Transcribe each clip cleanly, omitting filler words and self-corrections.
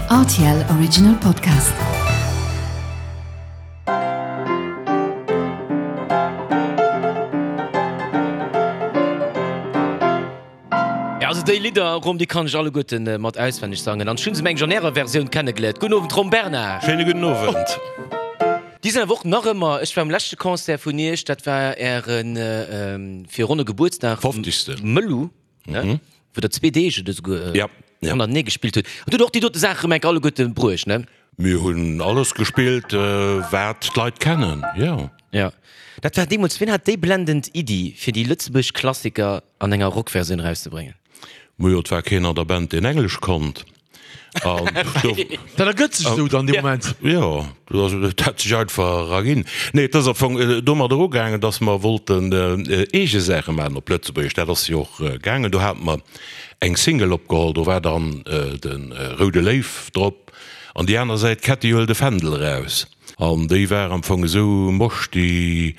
Rtl Original Podcast. Ja, also déi Lidder, Rom, déi kann ech alleguerten mat auswenneg sangen. An ech hunn se mengen ech an ärer Versioun kennegeléiert. Gudden Owend, Rom Bernard. Schéine gudden Owend. Déi sinn awer och nach ëmmer, ech war um leschte Concert vun iech, dat war ären fir ronne Gebuertsdag, Fofzegste. Mëllu, ne, wou der zwee Deeg oder esouguer Ja, ja. hannertenee gespillt hutt. An do hutt der och déi dote Saache rëm enk alleguerte bruecht, ne? Mir hunn alles gespillt, wat d'Leit kennen, jo. Jo. Dat war deemools, wien hat déi blendend Iddi, fir déi lëtzebuergesch Klassiker an enger Rockversioun erauszebréngen? Majo, et war keen an der Band, deen Englesch konnt. An do. Dat ergëtt sech esou dann dee Moment. Jo, dat hat sech einfach erginn. Nee, et ass am Fong domadder ugaangen, datt mer wollten eege Saache maachen op Lëtzebuergesch. Dat ass jo och gaangen. Do hate mer eng Single opgeholl, do war dann de Roude Léiw drop an déi aner Säit Ketty huel de Fändel eraus. An déi war am Fong esou mosch, déi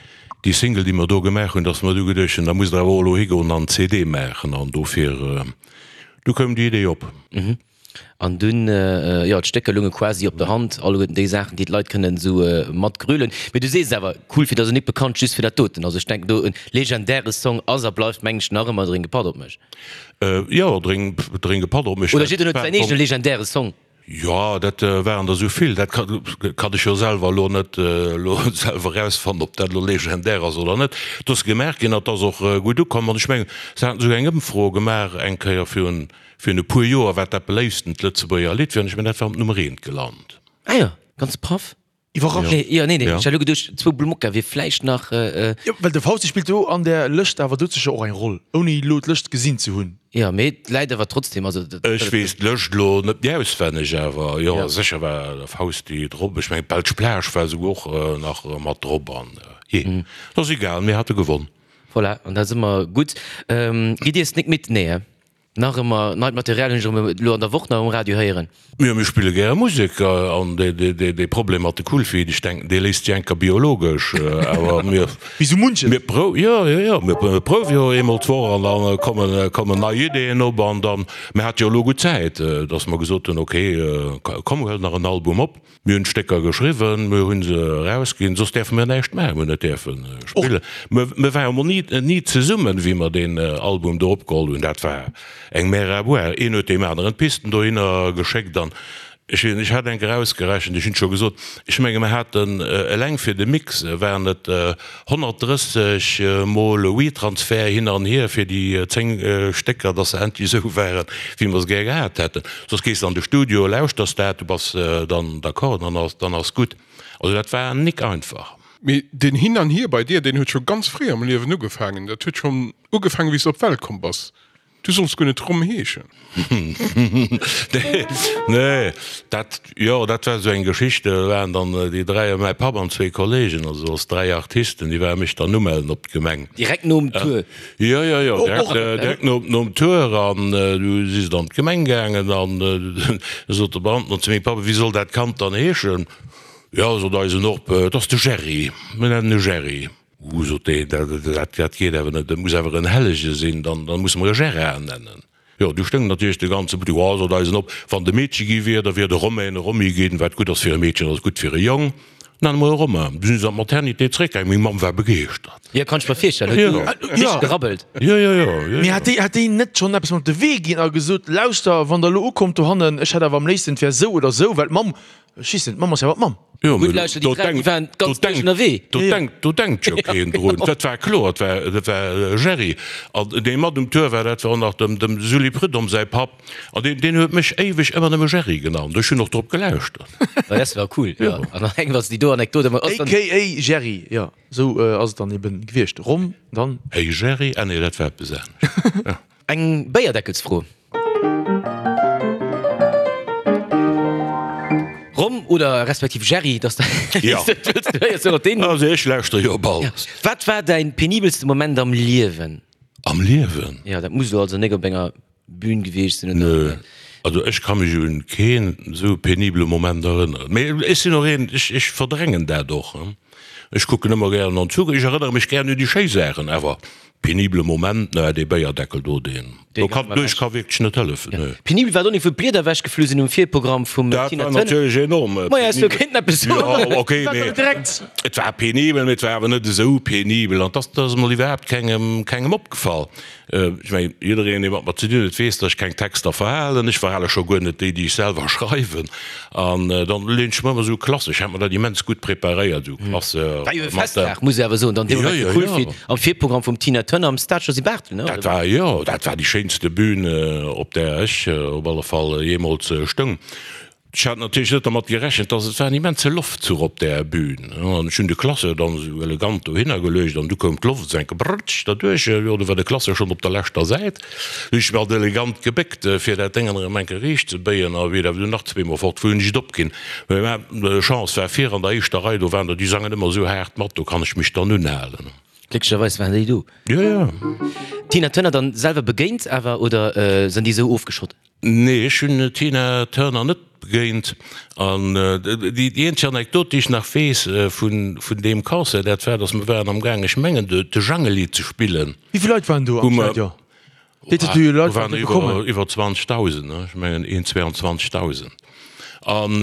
Single, déi mer do gemaach hunn, datt mer du geduecht hunn, da musst Der awer och elo higoen an CD maachen. An dofir, du koum déi Idee op. An dunn, jo, d'Stécker lounge quasi op der Hand, alleguerten déi Saachen, déi d'Leit kënnen esou matgrölen. Mee du sees et awer, Cool fir ass nik bekannt just fir dat doten. Also ech denken do, e legendäre Song ass a bleift, mengen ech, nach ëmmer Drénk e Patt op mech. Jo, Drénk e Patt op mech. Oder jidder huet säin eegene legendäre Song. Jo, dat waren der esou vill, dat kann ech jo selwer elo net elo selwer erausfannen, ob dat elo legendär ass oder net. Et ass gemaach ginn an et ass och gutt ukomm. An ech mengen, se haten esouguer eng Ëmfro gemaach eng Kéier virun virun e puer Joer, wat dat beléifstent Lëtzebuerger Lidd wier, an ech mengen, dat war op Nummer eent gelant. Ah jo, ganz paff. Iwwerrascht. Nee, jo, nee, nee, Ja. ech hat elo geduecht, zwou Blumokka wier vläicht nach. Jo, well de Fausti spillt do an där Lëscht awer dout sécher och eng Roll, ouni elo d'Lëscht gesinn ze hunn. Jo, mee et läit awer trotzdem, also dat. Ech weess d'Lëscht elo net méi auswenneg, awer jo, Ja. sécher war de Fausti drop. Ech mengen, d'Belsch Plage war esouguer och nach mat drop an jee, et ass egal, mir hate gewonn. Voilà, an da si mer gutt. Gitt Dir Snick mit? Nee, he? Nach ëmmer neit Material hunn ech erëm elo an der Woch nach um Radio héieren. Jo, mir spille gäre Musek an dee Problem mat de Coolfeet, ech denken, dee léist sech enker biologesch, awer mir. Wéi sou munches. Mir prou, jo, jo, jo, mir prouwe jo eemol d'Woch an da kommen, kommen nei Ideeën op an dann, mir hate jo elo gutt Zäit, datt mer gesot hunn, okay, komm, huel nach en Album op. Mir hunn d'Stécker geschriwwen, mir hu se erausginn, soss däerfe mir näischt maachen, mir hunn net däerfe spillen. Mir ware mol ni, ni zesummen, wéi mer deen Album do opgeholl hunn. Dat war eng Mer à boire. Een huet deem aneren d'Pisten dohinner geschéckt an ech weess net, ech hat eng Kéier ausgerechent, ech hunn et scho gesot, ech menge mer haten eleng fir de Mix waren et 130 mol WeTransfer hin an hier fir déi 10 Stécker, dass se endlech esou waren, wéi mer se gär gehat hätten. Soss gees de an de Studio, lauschters dat, du bass dann d'accord, dann ass, dann ass gutt. Also dat war nik einfach. Mee deen Hin an Hier bei dir, deen huet scho ganz fréi am Liewen ugefaangen. Dat huet schonn ugefaangen, wéi s de op d'Welt komm bass. Du solls guer net Rom heeschen. Nee, dat, jo, dat war esou eng Geschicht. Do waren dann déi dräi, mäi Papp an zwee Kollegen, also als dräi Artisten, déi ware mech dann umellen op d'Gemeng. Direkt nom Tour? Jo, jo, jo, direkt, direkt no, nom Tour. An du si se dann an d'Gemeng gaangen an du sot de Beamten zu mengem Papp, Wéi soll dat Kand dann heeschen? Jo, sot eisen Op, et ass de Gerry, mir nennen e Gerry. Uh, sot deen, dat, dat geet awer net, dat muss awer en Hellege sinn, dann, dann musse mer e Gérard nennen. Jo, du stoung natierlech de ganze Buttek, oh, sot eisen op, wann et e Meedche gi wier, da wier de Romain e Romy ginn, wat gutt ass fir e Meedchen, ass gutt fir e Jong, nenne mer e Romain. Du sinn se an d'Maternité zréckgaangen, meng Mamm war begeeschtert. Jo, kann ech mer virstellen, huet du richteg gerabbelt. Jo, jo, jo, jo. Mee hat déi, hat déi net schonn eppes mat op de Wee ginn a gesot, lauschter, wann der elo ukommt dohannen, ech hätt awer am léifsten, et wär esou oder esou, well d'Mamm Ech weess net, d'Mamm ass jo awer d'Mamm. Jo, Gutt, lauschter, déi dräi, déi waren ganz duerch ënnerwee. Do denkt, do denkt jo keen drun. Dat war kloer, dat war, dat war Gerry. An dee mat um Tour war, dat war och nach dem, dem Sully Prudhomme säi Papp. An deen, deen huet mech éiweg ëmmer nëmme Gerry genannt. Ech hunn och drop gelauschtert. Ma dat war cool, jo. An dann eng, wann s de déi do Anekdot ëmmer. AKA Gerry, jo, esou ass et dann eben gewiescht. Rom, dann. Hey Gerry, ah nee, dat war eppes anescht. Eng Béierdeckelsfro. Rom oder respektiv Jerry, dass de Ja. Du héiers jo och deen. Also ech lauschter jo op alles. Wat war däin penibelste Moment am Liewen? Am Liewen? Jo, dat muss elo also nek op enger Bühn gewiescht sinn, oder? Nö. Also ech ka mech un keen esou penibele Moment erënneren. Mee ech sinn och een, ech ech verdrängen dat och. Ech kucken ëmmer gären an d'Zukunft. Ech erënnere mech gären un déi schéi Saachen, awer. Penibele Moment, ne, dee Béierdeckel do, deen do kann, do ech ka wierklech net hëllefen, ne. Penibel war et och net, wou d'Blieder ewechgeflu sinn um Virprogramm vum Dat Tina war Turner. natierlech enorm Maja, ech penibel. kéinten eppes soen. Jo, okay, mee et war penibel, mee et war awer net esou penibel an dass ass emol iwwerhaapt kengem, kengem opgefall. Ech mengen, jiddereen, dee mat mer ze dinn huet, weess, datt ech keng Texter verhalen. Ech verhale scho guer net déi, déi ech selwer schreiwen. An dann leen ech mer ëmmer esou klassesch, ech hat mer dat immens gutt preparéiert, esou Klasse War jo e mat der. Festdag, muss ech awer soen, dann dee Moment Jo, jo, cool jo. fir am Virprogramm vum Tina Turner am Stade Josy Barthel, ne? Dat war, jo, dat war déi schéinste Bühn, op där ech op alle Fall jeemools stoung. Ech hat natierlech net dermat gerechent, dass et war en immense Loftzuch op där Bühn, an ech hunn de Classeur dann esou elegant dohinner geluecht an du koum d'Loft esou enke brrtsch derduerch, jo, du war de Classeur schonn op der leschter Säit. Du hunn ech mech alt elegant gebéckt, fir dat Déngen erëm enke riicht ze béien, a wéi dat du nach zweemol fort wor, hunn ech et opginn. Mä Chance war vir an der éischter Rei, do waren der, déi sangen ëmmer esou haart mat, do kann ech mech dann unhalen. Glécklecherweis waren déi do. Jo, jo. Tina Turner dann selwer begéint awer, oder sinn déi esou ofgeschott? Nee, ech hunn d'Tina Turner net begéint. An déi eenzeg Anekdot, déi ech nach weess vun deem Concert, dat war, datt mer waren am gaang, ech mengen, de Jangeli ze spillen. Wéi vill Leit waren do am Stadion? Déi Do waren iwwer 20.000, ech mengen een 22.000. An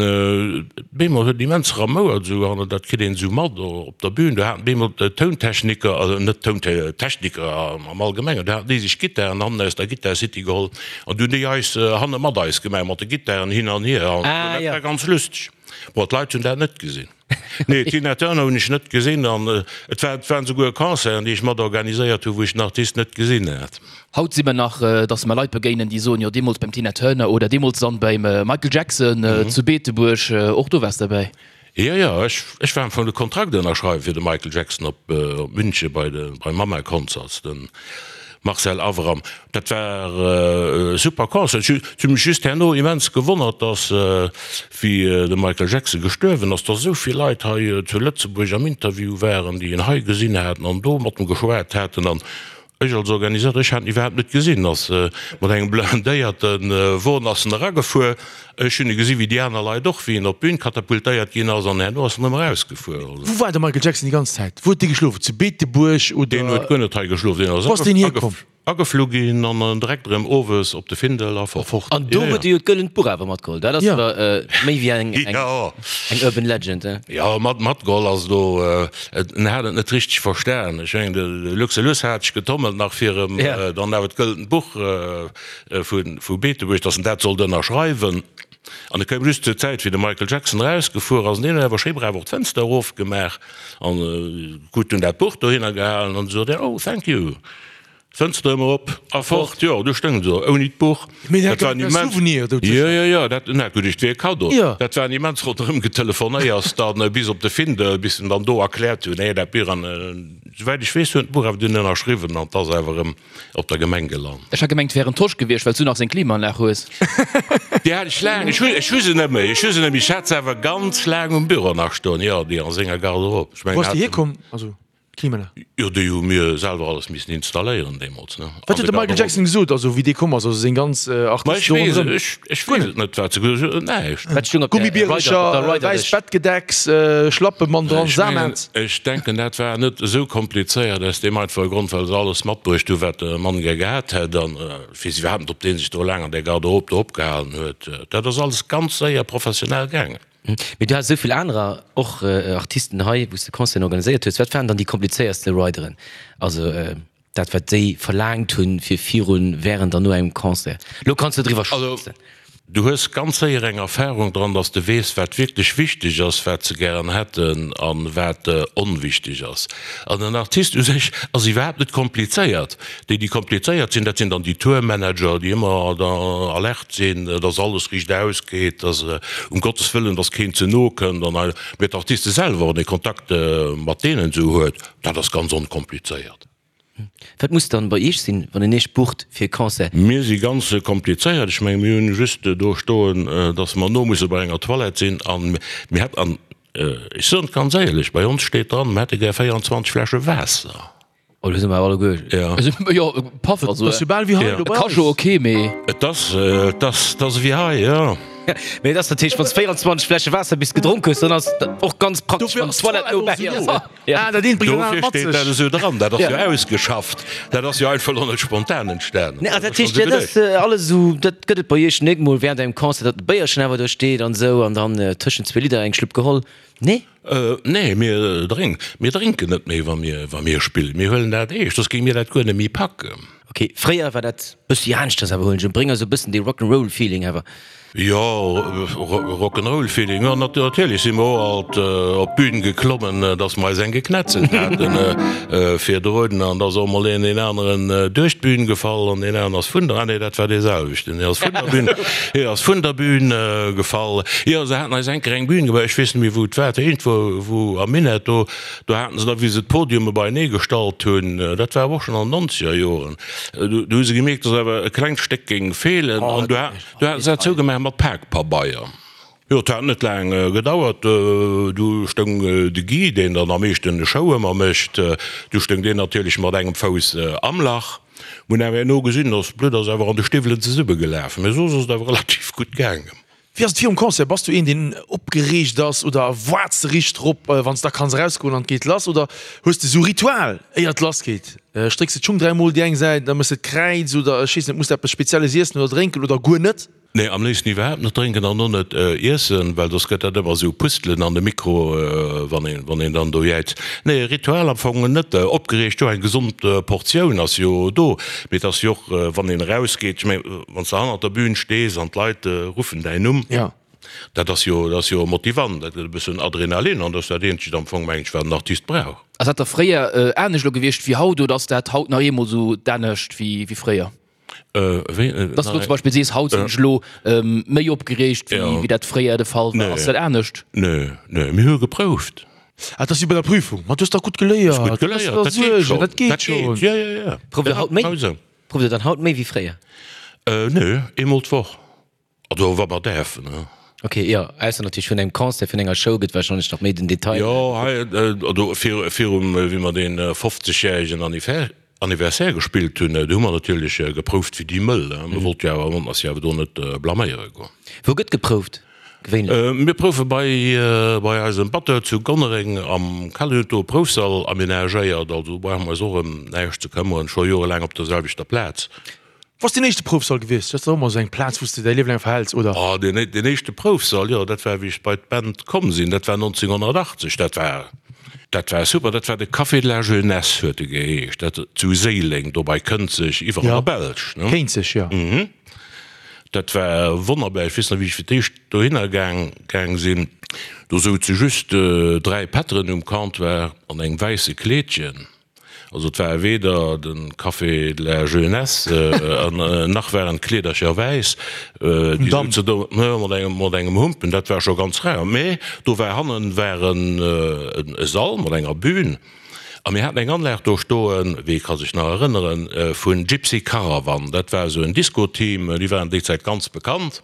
bemol huet et immens ramouert esou an dat kritt een esou mat op der Bühn. Do haten bemol d'Tountechniker, also net d'Tountechniker am Allgemengen, do haten déi sech Gittaren hannen aus der Guitar City geholl an du hunn déi eis hanne mat eis gemaach mat de Gittaren hin an hier an dat war ganz lusteg. Bon, d'Leit hunn dat net gesinn. Nee, d'Tina Turner hunn ech net gesinn an et war, et waren souguer Concerten, déi ech mat organiséiert hunn, wou ech den Artist net gesinn hat. Haut si mer nach, dass mer Leit begéinen, déi soen, jo deemools beim Tina Turner oder deemools dann beim Michael Jackson zu Beetebuerg, och do waars derbäi. Jo, jo, ech, ech war am Fong de Kontrakt ënnerschreiwen fir de Michael Jackson op, op München bei de, bei Mama Concerts, den Marcel Avram. Dat war e super Concert. Ech hu mech just herno immens gewonnert, dass, wéi de Michael Jackson gestuerwen ass, dass esou vill Leit hei zu Lëtzebuerg am Interview waren, déi en hei gesinn haten an do mat em geschwat haten. An ech als Organisateur, ech hat en iwwerhaapt net gesinn, ass mat engem blindéierte Won ass en eragefuer. Ech hunn e gesi wéi déi aner Leit och, wéi en op d'Bün katapultéiert ginn ass an herno ass en erëm erausgefuer. Wou war de Michael Jackson déi ganz Zäit? Wou huet dee geschlof? Zu Beetebuerg oder? Deen huet guer net hei geschlof, deen ass Wou ass deen hierkomm? ageflu ginn an dann direkt erëm owes op de Findel a fort. An do huet e jo d'gëllent Buch awer matgeholl. Dat ass awer méi wéi eng eng Urban Legend, he? Jo, mat matgeholl ass do, en hat et net richteg verstan. Ech mengen, de Luxelus hat sech getommelt nach fir em dann awer d'gëllent Buch vu Beetebuerg, datt en dat sollt ënnerschreiwen. An et koum just zur Zäit, wéi de Michael Jackson erausgefuer ass, an deen huet awer schéi brav och d'Fënster erofgemaach an gutt dunn dat Buch dohinner gehalen an sot, Oh, thank you. D'Fënster ëmmer op a fort. Jo, do stoung se ouni d'Buch. Dat war en immens. Souvenir do. Jo, jo, jo, dat, na gutt, et wier e Kaddo. Dat war en immens ronderëm Getelefonéiers dann bis op de Findel, bis en dann do erkläert hunn, nee, dat Buch an, souwäit ech weess, huet en d'Buch awer dunn ënnerschriwwen an 't ass awer erëm op der Gemeng gelant. Ech hat gemengt wär en Tosch gewiescht, wells du nach seng Klimaanlag hues. Déi hat ech laang, ech hu ech hu se net méi, ech hu se net méi, ech hat se awer ganz laang um Büro nach stoen, jo, déi a senger Garderobe. Ech mengen, Wou ass déi hierkomm, also d'Klimaanlag? Jo, déi hu mir selwer alles missen installéieren deemools, ne. Wat huet de Michael Jackson gesot, also wéi dee komm ass, also seng ganz Artisten do ronderëm? Ech weess, ech weess et net, wat se gesot hunn, näischt. Wat stoung op der Rider, op der Gummibiercher, wäisst Bettgedecks, Schlappe mat dran, Samet. Ech denken, dat war net esou komplizéiert, aus deem einfache Grond, well se alles matbruecht hu wat de Mann gär gehat hätt. An ech weess iwwerhaapt net, ob dee sech do laang an där Garderobe do opgehalen huet. Dat ass alles ganz séier professionell gaangen. Mee du has esou vill anerer och Artisten hei, wou s de Concerten organiséiert hues. Wat waren dann déi komplizéierste Rideren? Also dat wat déi verlaangt hunn fir virun, wärend an no engem Concert. Lo kanns de driwwer schwätzen. Du hues ganz séier eng Erfahrung dran, dass de weess, wat wierklech wichteg ass, wat se gären hätten a wat onwichteg ass. An en Artist u sech ass iwwerhaapt net komplizéiert. Déi, déi komplizéiert sinn, dat sinn dann déi Tourmanager, déi ëmmer alert sinn, dass alles riicht ausgeet, dass um Gottes Wëllen, dass keen ze no kënnt an hei. Mee d'Artiste selwer, wann ee Kontakt mat deenen esou huet, dat ass ganz onkomplizéiert. Wat muss dann bei Iech sinn, wann een Iech bucht fir e Concert? Mir si ganz komplizéiert. Ech menge mir hunn just do stoen, datt mer no musse bei enger Toilette sinn an mir hätt, an ech soen et ganz éierlech, bei ons steet dran, mir hätte gär 24 Fläsche Waasser. Oh, do si mer awer alleguer. Jo. Mee et ass natierlech, wann s 24 Fläsche Waasser bis gedronk hues, dann ass et och ganz praktesch, wann d'Toilette no bäi ass. Ah, dat eent bréngt dat anert Dofir mat steet dat sech. esou dran. Dat ass jo ausgeschafft. Dat ass jo einfach elo net spontan entstanen. Nee, dat heescht, dat ass alles esou, dat gëtt et bei iech net mol während engem Concert, datt e Béierchen awer do steet an esou an dann tëschent zwee Lidder eng Schlupp geholl? Nee? Nee, mir drénken, mir drénken net méi, wa mir, wa mir spillen. Mir huelen dat eescht, soss géinge mir dat guer net méi packen. Ok, fréier war dat bëssi aneschters awer, huelen ech un. Bréng eis e bëssen dee Rock'n'Roll Feeling awer. Jo, Rock'n'Roll Feeling, jo natierlech si mer och alt op d'Bün geklommen, dass mer eis eng geknetzelt haten virdrun an da ass och mol een deen aneren duerch d'Bün gefall an deen aneren ass vun der, ah nee, dat war dee selwechten, deen ass vun der Bün, hie ass vun der Bün gefall. Jo, se haten eis eng Kéier eng Bün gebaut, ech weess net méi wou et war, iergendwou wou am Minett do, do haten se da wéi se d'Podiume beienee gestallt hunn, dat war awer och schonn an den nonzeger Joren, do hu se gemierkt, dass awer e klengt Stéck géing feelen an do Du haten se dat zougemaach mat Pakpabeier. Jo, et hat net laang gedauert, du stoung de Guy, deen dann am meeschten de Show ëmmer mécht, du stoung deen natierlech mat engem Fouss am Lach. Mir hunn awer herno gesinn, dass d'Blutt ass awer an de Stiwwelen zesummegelaf, mee soss ass et awer relativ gutt gaangen. Wéi ass et virum Concert? Bass du een, deen opgereegt ass oder waarts de richteg drop, wann s da kanns erausgoen an et geet lass? Oder hues de sou Ritual, éier et lass geet? Strécks de d'Schung dräimol déi eng Säit, da méchs de d'Kräiz oder ech weess net, muss de eppes Spezielles iessen oder drénken oder guer net? Nee, am léifsten iwwerhaapt net drénken an och net iessen, well soss gëtt dat ëmmer esou Pustelen an de Mikro, wann een, wann een dann do jäizt. Nee, Ritual am Fong net. Opgereegt, jo, eng gesond Portioun ass jo do, mee et ass jo och, wann een erausgeet, ech mengen, wann s de hannert der Bühn stees an d'Leit ruffen däin Numm, Dat ass jo, dat ass jo motivant, dat gëtt e bëssen Adrenalin an dat ass dat eenzegt am Fong, meng ech, wat en Artist brauch. Ass dat da fréier anescht elo gewiescht wéi haut oder ass dat haut nach eemol esou d'anescht wéi fréier? Wéi? Dass du elo zum Beispill sees, haut sinn ech elo méi opgereegt wéi dat fréier de Fall war. Ass dat anescht? Nö, nö, mir hu geprouft. Ah, dat ass wéi bei der Prüfung. Ma du hues dach gutt geléiert. Gutt geléiert, dat geet schonn. Dat geet schonn. Jo, jo, jo. Prouft der haut méi? Prouft der dann haut méi wéi fréier? Nö, eemol d'Woch. Also wa mer däerfen, ne? Ok, jo, ausser natierlech vun engem Concert, vun enger Show gëtt warscheinlech nach méi den Detail. Jo, hei, also virum, wéi mer dee 50 järegen Anniversaire gespillt hunn, do hu mer natierlech geprouft wéi déi Mëll. Mir wollte jo awer, wollten eis jo awer do net blaméiere goen. Wou gëtt geprouft gewéinlech? Mir proufe bei, bei eisem Batteur zu Gonnereng am Keller. Hien huet do e Proufsall amenagéiert, also do brauche mer eis och ëm näischt ze këmmeren, scho jorelaang op der selwechter Plaz. Wou ass deen éischte Proufsall gewiescht? Dat ass dach ëmmer esou eng Plaz, wou s de däi Liewe laang verhäls, oder? Oh, deen, deen éischte Proufsall, jo, dat war, wéi ech bei d'Band komm sinn, dat war 1980. Dat war, dat war super. Dat war de Café de la Jeunesse, huet e geheescht, dat zu Séileng, do bei Kënzeg, iwwer an der Belsch, ne? Kéinzeg, jo. Mhm. Dat war wonnerbar. Ech weess nach, wéi ech fir d'éischt dohinner gaang, gaang sinn. Do souze just 3 Pätteren um Comptoir an engem wäisse Kleedchen. Also et war weder de Café de la Jeunesse an nach waren d'Kleedercher wäiss, déi souzen do mat engem Humpen, dat war scho ganz rar. Mä do war hannen war e Sall mat enger Bühn a mir haten eng Anlag do stoen, wee ka sech nach erënneren, vun Gypsy Caravan. Dat war esou en Disco-Team, déi waren déi Zäit ganz bekannt.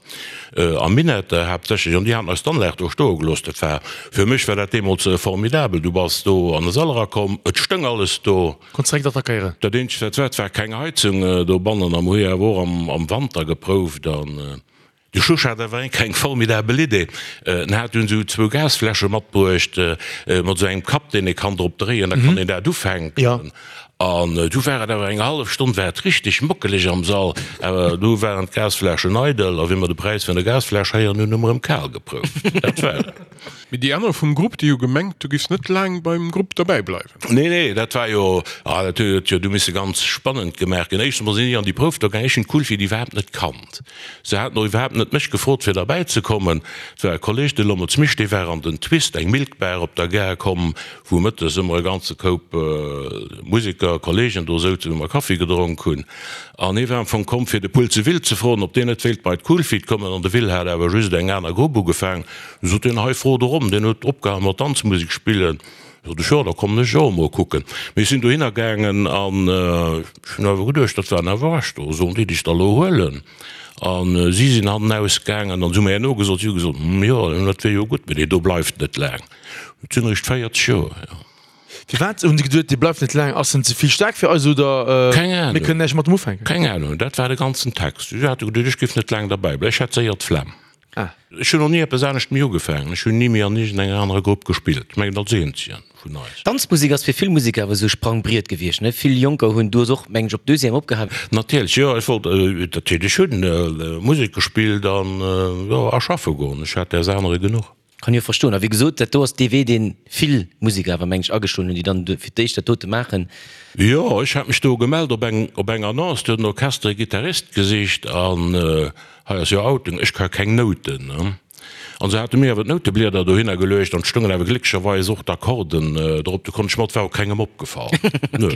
Am Minett haaptsächlech, an déi haten eis d'Anlag do stoe gelooss. Dat war, fir mech war dat deemools formidabel. Du bass do an de Sall erakomm, et stoung alles do. Konns direkt attackéieren. Dat eenzegt wat war, et war keng Heizung dobannen a mer hu jo awer och am Wanter geprouft. An de Schusch hat awer eng eng formidabel Idee. En hat dunn esou zwou Gasfläsche matbruecht mat esou engem Kapp, deen ee kann drop dréien, da kann een dat ufänken. An du war et awer eng hallef Stonn war et richteg mockeleg am Sall, awer du waren d'Gasfläschen eidel a wéi mer de Präis vun der Gasfläsch héieren hunn, hu mer erëm kal geprouft. Dat war et. Mee déi aner vum Grupp, déi hu gemengt, du giffs net laang beim Grupp derbäi bleiwen. Nee, nee, dat war jo, ah, dat huet jo du misse ganz spannend gemaach ginn. Éischtens mol sinn ech an déi Prouf do gaang, ech hunn d'Kulfi iwwerhaapt net kannt. Se haten och iwwerhaapt net mech gefrot fir derbäi ze kommen. Et war e Kolleg, de Lommelz Misch, dee war an den Twist, eng Milk Bar op der Gare komm, wou mëttes ëmmer e ganze Koup Museker, Kollegen do souzen, wou mer Kaffi gedronk hunn. An hie war am Fong komm fir de Pulze Will ze froen, ob deen net wéilt bei d'Cool Feet kommen. An de Will hat awer just eng aner Grupp ugefaang. Du sot deen, hei fro de Rom, deen huet opgehal mat Danzmusek spillen. Sot ech, jo, da kommen ech och emol kucken. Mee ech sinn dohinner gaangen an ech hunn awer geduecht, dat waren awer Recht do, sollen déi dech da lo huelen? A si sinn hannenaus gaangen an si hu mir herno gesot, si hu gesot, hm, jo, dat wier jo gutt, mee dee do bleift net laang. Et sinn eréischt 40 Joer, jo. Firwat hunn se geduet, dee bleift net laang? Ass en ze vill staark fir eis oder Keng Ahnung. mir kënnen näischt mat em ufänken? Keng Ahnung, dat war de ganzen Text. Si hate geduecht, ech géif net laang derbäi bleiwen, ech hätt séier d'Flemm. Ah. Ech hunn och ni eppes anescht méi ugefaangen. Ech hunn ni méi an iergendenger anerer Grupp gespillt. Ech mengen als eenzegen vun eis. Danzmusek ass fir vill Museker awer esou e Sprangbriet gewiescht, ne? Vill Jonker hunn, du hues och, mengen ech, op Deuxième opgehal. Natierlech, jo. Ech wollt, natierlech hunn Musek gespillt an, jo, a schaffe goen. Ech hat däers anere genuch. Kann jo verstoen. A wéi gesot, dat do ass dee Wee, dee vill Museker awer, mengen ech, ageschloen hunn, déi dann fir d'éischt dat dote maachen. Jo, ech hat mech do gemellt op eng, op eng Annonce, do huet en Orchester e Gittarist gesicht an hei ass jo Outing, ech ka keng Nouten, ne. An se hate mir awer d'Nouteblieder dohinner geluecht an et stoungen awer glécklecherweis och d'Akkorden drop, do konnt ech mat, war och kengem opgefall, nö.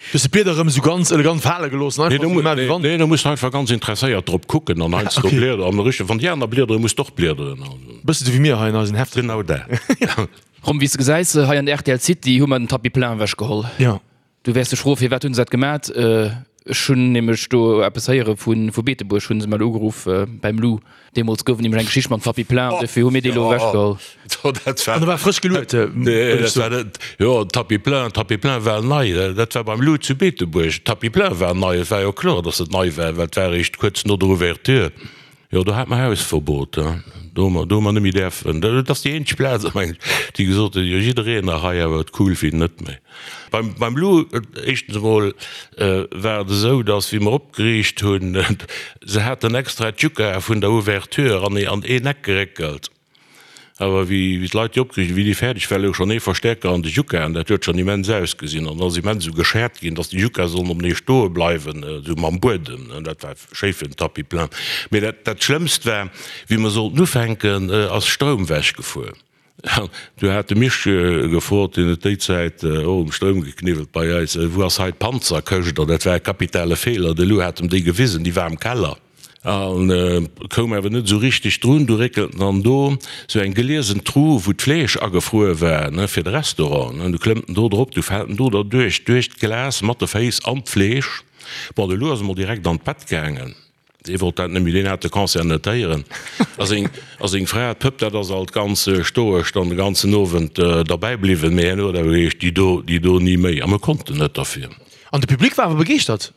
Du hues de Blieder erëm esou ganz elegant fale gelooss an einfach esou gemaach wéi wann. Nee, do muss de einfach ganz interesséiert drop kucken an heiansdo bliederen an richteg, wann déi aner bliederen, muss de och bliederen. Bësse sou wéi mir hei an eisen Hefter. Genau dat. Rom, wéi s de gesäis, hei an der rtl City hu mer den Tapis plein ewechgeholl. Jo. Du wäers dech froen, firwat hunn se dat gemat? Ech hunn nämlech do eppes héiere vu Beetebuerg, hu se mech ugeruff beim Lou. Deemools gouf et nämlech eng Geschicht mam Tapis plein, dofir hu mir dee lo ewechgeholl. An e war frësch geluet, wëll ech soen. Jo, Tapis plein, Tapis plein war nei. Dat war beim Lou zu Beetebuerg. Tapis plein war nei. Et war jo kloer, datt et nei war, well et war eréischt kuerz no der Ouverture. Jo, do hate mer Hausverbot. Do hu mer, do hu mer net méi däerfen. Dat ass déi eenzeg Plaz, mengen ech, déi gesot huet, jo jiddereen nach hei, awer d'Cool Feet net méi. Beim, beim Lou, éischtens emol war et esou, datt wéi mer opgeriicht hunn, se haten extra d'Juka vun der Ouverture an an een Eck geréckelt. Awer wéi d'Leit déi opgeriicht hunn, wéi déi fäerdeg war, louch schonn ee Verstäerker an de Jukaen. Dat huet schonn immens ausgesinn. An ass immens esou geschäert ginn, datt déi Jukae sollen openee stoe bleiwen, esou mam Buedem. Dat war schéi fir den Tapis plein. Mee dat, dat Schlëmmst war, wéi mer sollten ufänken, ass Stroum wechgefuer. Du hat de Misch gefrot, deen huet déi Zäit och um Stroum gekniwwelt bei eis, wou ass hei d'Panzerkëscht? An dat war e kapitale Feeler. De Lou hat em déi gewisen, déi war am Keller. An koum awer net esou richteg drun. Du réckelt en dann do sou eng geliesen Tru, wou d'Fleesch agefruer war, ne, fir de Restaurant, ne. Du klëmmt en do drop, du fält en do derduerch, duerch d'Glas mat de Féiss an d'Fleesch. Bon, de Lou ass emol direkt an d'Bett gaangen. Dee wollt dat net méi, deen hat de Concert net héieren. A seng, a seng Fra, d'Pëpp, dat ass alt ganz stoesch dann de ganzen Owend derbäi bliwwen. Mee herno huet awer geheescht, déi do, déi do ni méi. A mir konnten net derfir. An de Public war awer begeeschtert.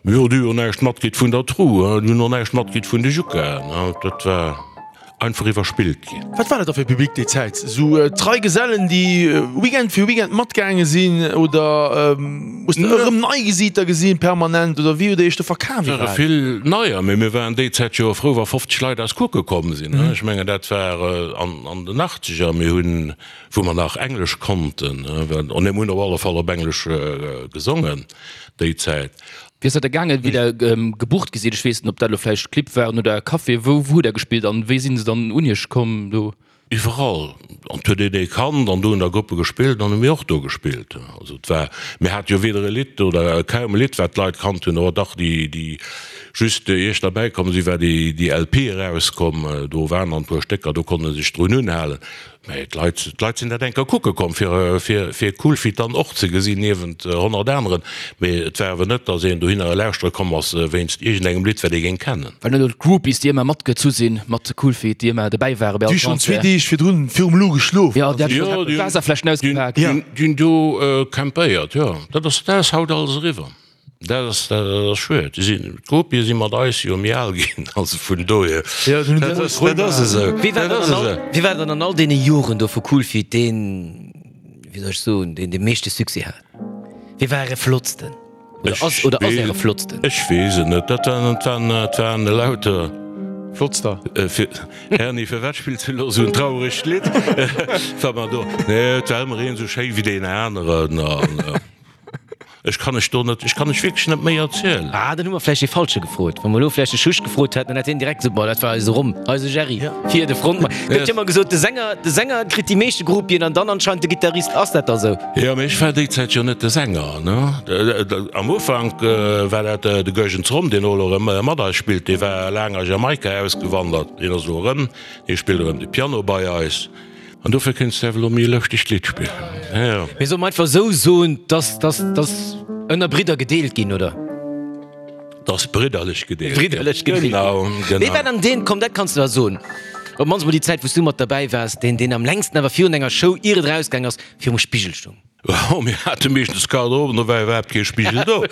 Jo, déi hu jo näischt matkritt vun der Tru, déi hunn och näischt matkritt vun de Jukaen. Dat war einfach iwwerspillt ginn. Wat war dat da fir e Public déi Zäit? Esou trei Gesellen, déi Weekend fir Weekend matgaange sinn oder hues de erëm nei Gesiiter gesinn permanent oder wéi hutt Dir Iech do verkaf Et ware iwwerhaapt? vill neier, mee mir waren déi Zäit jo frou, wa 50 Leit eis kucke komm sinn. Ech mengen, dat war an den Achtzeger. Mir hunn wou mer nach Englesch konnten, an mir hunn op alle Fall op Englesch gesongen déi Zäit. Wéi ass dat da gaangen, wéi der gebucht gi sidd? Ech weess net, ob dat elo vläicht Clibb waren oder Café. Wou hutt der gespillt an wéi sinn se dann un iech komm do? Iwwerall. An et huet een ee kannt an do hunn da Gruppe gespillt an hu mir och do gespillt. Also et war, mir hate jo weder e Lidd oder kaum e Lidd wat d'Leit kannt hunn, awer dach déi déi just ier ech derbäi komm sinn, war déi déi LP erauskomm, do waren dann e puer Stécker, do konnt e sech drun unhalen. Mä d'Leit, d'Leit sinn dat eng Kéier kucke komm, fir, fir, fir Coolfeet dann och ze gesinn, niewent 100 aneren. Mee et war awer net, datt een dohinner lauschtere komm ass wéinst iergendengem Lidd, wat ee géing kennen. Well net elo d'Groupies, déi ëmmer matgezu sinn mat Coolfeet, déi ëmmer dobäi ware bei all Concert. Déi schonn zwee Deeg virdrun virum Lou geschlof. Jo, déi haten schonn d'Waasserfläschen ausgepaakt. Déi hunn do campéiert, jo. Dat ass, dat ass haut alles eriwwer. Dat ass, dat ass schued. Déi sinn, d'Gruppie si mat eis jo méi al ginn, also vun dohier, dat ass, dat ass esou. Wie war dann an all, wie war dann an all deene Joren do vu Coolfeet deen, wéi soll ech soen, deen de meeschte Succès hat? Wie war äre flottsten? Oder ass, oder ass äre flottsten? Ech weess et net. Dat waren, dat waren, dat waren elauter. Flottster. Fir, Erny, firwat spills du elo esou en trauregt Lidd? Wa mer do, nee, et war ëmmer een esou schéi wéi deen aneren an. Ech kann ech do net, ech kann ech wierklech net méi erzielen. Ah, dann hu mer vläicht dee Falsche gefrot. Wa mer elo vläicht de Schusch gefrot hätten, dann hätt hien direkt gesot, Boah, dat war eise Rom, eise Jerry, fir de Frontmann. Gëtt jo ëmmer gesot, de Sänger, de Sänger kritt déi meeschte Groupien an dann anscheinend de Gittarist. Ass dat da sou? Jo, mee ech war déi Zäit jo net de Sänger, ne. Am Ufank war dat de Goergens Rom, deen elo erëm mat eis spillt. Dee war laang a Jamaika ausgewandert, deen ass elo erëm, dee spillt erëm de Piano bei eis. An dofir kéints de awer elo méi e lëschtegt Lidd spillen. Jo. Mee solle mer einfach esou soen, dass, dass, dass ënner Bridder gedeelt ginn, oder? Dass bridderlech gedeelt ginn. Bridderlech gedeelt ginn. Genau, genau. Wee war dann deen, komm, dat kanns de da soen, op d'mannst mol déi Zäit, wou s du mat derbäi waars, deen, deen am längsten awer virun enger Show, ier et erausgaang ass, virum Spigel stoung? Oh, mir hate meeschtens d'Garderobe, do war iwwerhaapt kee Spigel do.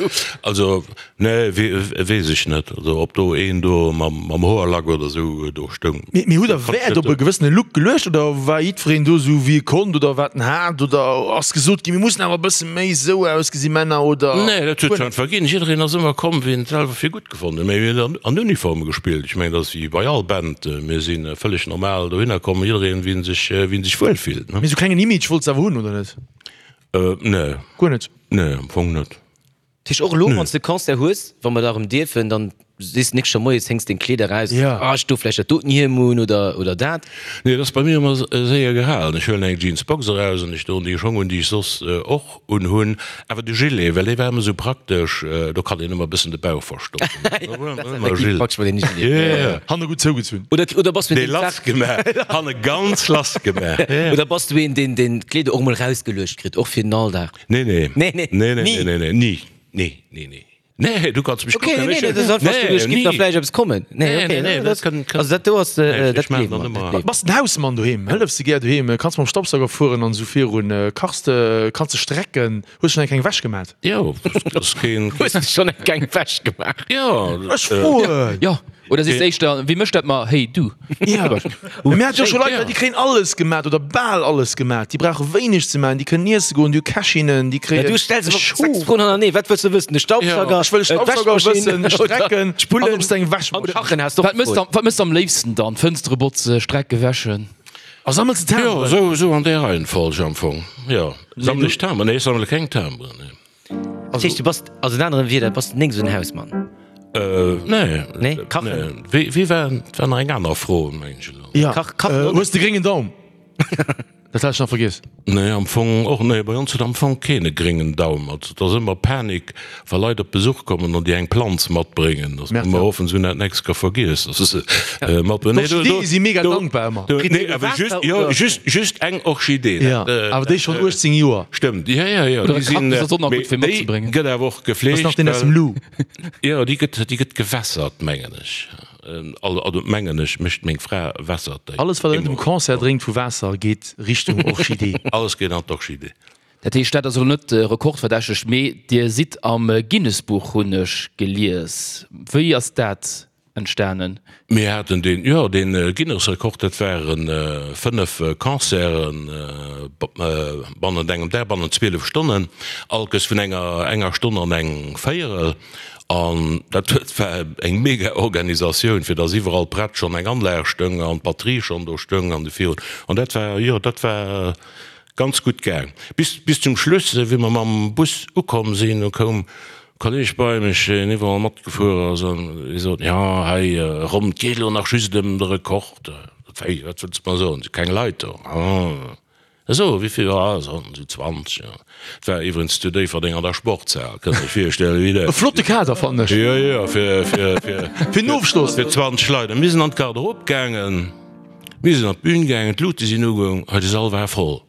Also, nee, weess ech net, also ob do een do mam Hoerlack oder esou do stoung. Mee hutt der Wäert op e gewëssene Look geluecht oder war jiddwereen do esou wéi e konnt oder wat en hat? Oder ass gesot ginn, mir mussen awer e bësse méi esou ausgesi Männer oder? Nee, dat huet sech einfach ginn. Jiddereen ass ëmmer komm, wéi en et selwer fir gutt gefonnt huet. Mee mir hunn an Uniforme gespillt. Ech mengen, dat ass wéi bei all Band. Mir si vëlleg normal dohinner komm, jiddereen wéi en sech, wéi en sech wuel fillt. Mee esou klengen Image wollts de awer hunn, oder net? Nee. Guer net? Nee, am Fong net. Dat heescht och elo, wann s de Concert hues, wa mer da erëm dierfen, dann sees de d'nächst Joer moies, héngs deng Kleeder eraus, ah ech do vläicht dat doten Hiem un oder oder dat. Nee, dat ass bei mir ëmmer séier gehalen. Ech huelen eng Jeansbox eraus an ech doen déi Schong un, déi ech soss och unhunn. Awer de Gilet, well dee war ëmmer esou praktesch, do kann een ëmmer e bëssen de Bauch verstoppen. Dat ass effektiv praktesch mat deem Gilet. Hanne gutt zougezunn. Oder oder bass du een, deen d'Saach. Dee lass gemaach, hanne ganz lass gemaach. Oder bass du een, deen deen d'Kleeder och emol erausgeluecht kritt, och fir den Alldag? Nee, nee. Nee, nee. Nee, nee, nee, nee, nee, ni. Nee, nee, nee. Nee, du kanns mech Okay, nee, nee, dat ass einfach, du, ech giff da vläicht eppes kommen. Nee, okay, nee, nee, dat kënnt, also dat do ass, dat gleewe mer, dat gleewe Bass den Hausmann doheem? Hëllefs de gär doheem? Kanns mam Staubsauger fueren an esou virun? Kachs de? Kanns de strecken? Hues schonn eng kleng Wäsch gemat? Jo, dat ass keen. Hues de schonn eng kleng Wäsch gemaach? Jo. Ech froen! Jo, oder sees de éischter, Wie mécht dat mar? Hey, du! Jo. Mir hate jo scho Leit, déi kréien alles gemat oder bal alles gemat. Déi brauche wéineg ze maachen, déi kënnen iesse goen, déi hu Kächinnen, déi kréien. Du stells awer 6 Froen hannerneeë. Wat wëlls de wëssen? De Staubsauger? Ech wëll e Staubsauger wëssen, strecken an ob s de eng Wäschmaschinn. Kachen has de och gefrot. Wat méchs de am léifsten dann? Fënstere botze, Strecke wäschen? A sammels de Jo, Timberen? esou, esou an där Reihenfolg am Fong, jo. Sammele ech Timberen? Nee, ech sammele keng Timberen, nee. Dat heescht, du bass, also en anere Wieder, bass nik esou en Hausmann? Nee. Nee? Kachen? Nee. Wéi, wéi war, dat war nach eng aner Fro, mengen ech elo. Ja, Kach, kachen och hues de gréngen Daum? Dat hat ech nach vergiess. Nee, am Fong och nee. Bei ons huet am Fong keen e gréngen Daum. Also et ass ëmmer Panik, wa Leit op Besuch kommen an déi eng Planz matbréngen. Dass mer hoffen, se hunn dat nächst Kéier vergiess, dass se se matbréngen. Nee, do, do, D'Orchidee si mega do, dankbar ëmmer. do, Kritt nee, dir awer Waasser just, jo, oder? just, just eng Orchidee. Ja, Dat, awer déi dat, schonn 18 Joer. Stëmmt, jo, jo, jo, Oder déi e sinn, Kaktus ass och nach mee gutt fir déi matzebréngen. gëtt awer och Dat ass nach gefleegt, deen aus dem well, Lou. jo, déi gëtt, déi gëtt gewässert, mengen ech. Also mengen ech mécht meng Fra wässert déi. Alles wat der net um Concert drénkt vu Waasser geet Richtung Orchidee. Alles geet an d'Orchidee. Dat heescht, dat ass elo net rekordverdächteg, mee Dir sidd am Guinness-Buch, hunn ech gelies. Wéi ass dat entstanen? Mir haten deen, jo, dee Guinness-Rekord, dat ware 5 Concerten bannent engem Dag, bannent 12 Stonnen, allkes vun enger enger Stonn an eng Véierel. An dat huet war eng mega Organisatioun, fir dass iwwerall prett schonn eng Anlag stoung an d'Batterie schonn do stoung an de virun. An dat war, jo, dat war ganz gutt gaang. Bis, bis zum Schluss, wéi mer mam Bus ukomm sinn, do koum e Kolleg bei mech, deen iwwerall matgefuer ass, an hie sot, Jo, hei ronn, et geet elo nach just ëm de Rekord. Wéi, wat wëlls de mer soen, et si keng Leit do? Ah. Esou, wéi vill? Ah, esou 20, jo. Et war iwwregens zu Déifferdeng an der Sportshal, kënnt Iech virstellen, wéi dat. E flotte Kader, fannen ech. Jo, jo, fir, fir, fir. Fir den Ofschloss. Fir 20 Leit. A mir sinn an d'Garderobe gaangen, mir sinn an d'Bün gaangen, d'Luute sinn ugoung, hei de Sall war voll.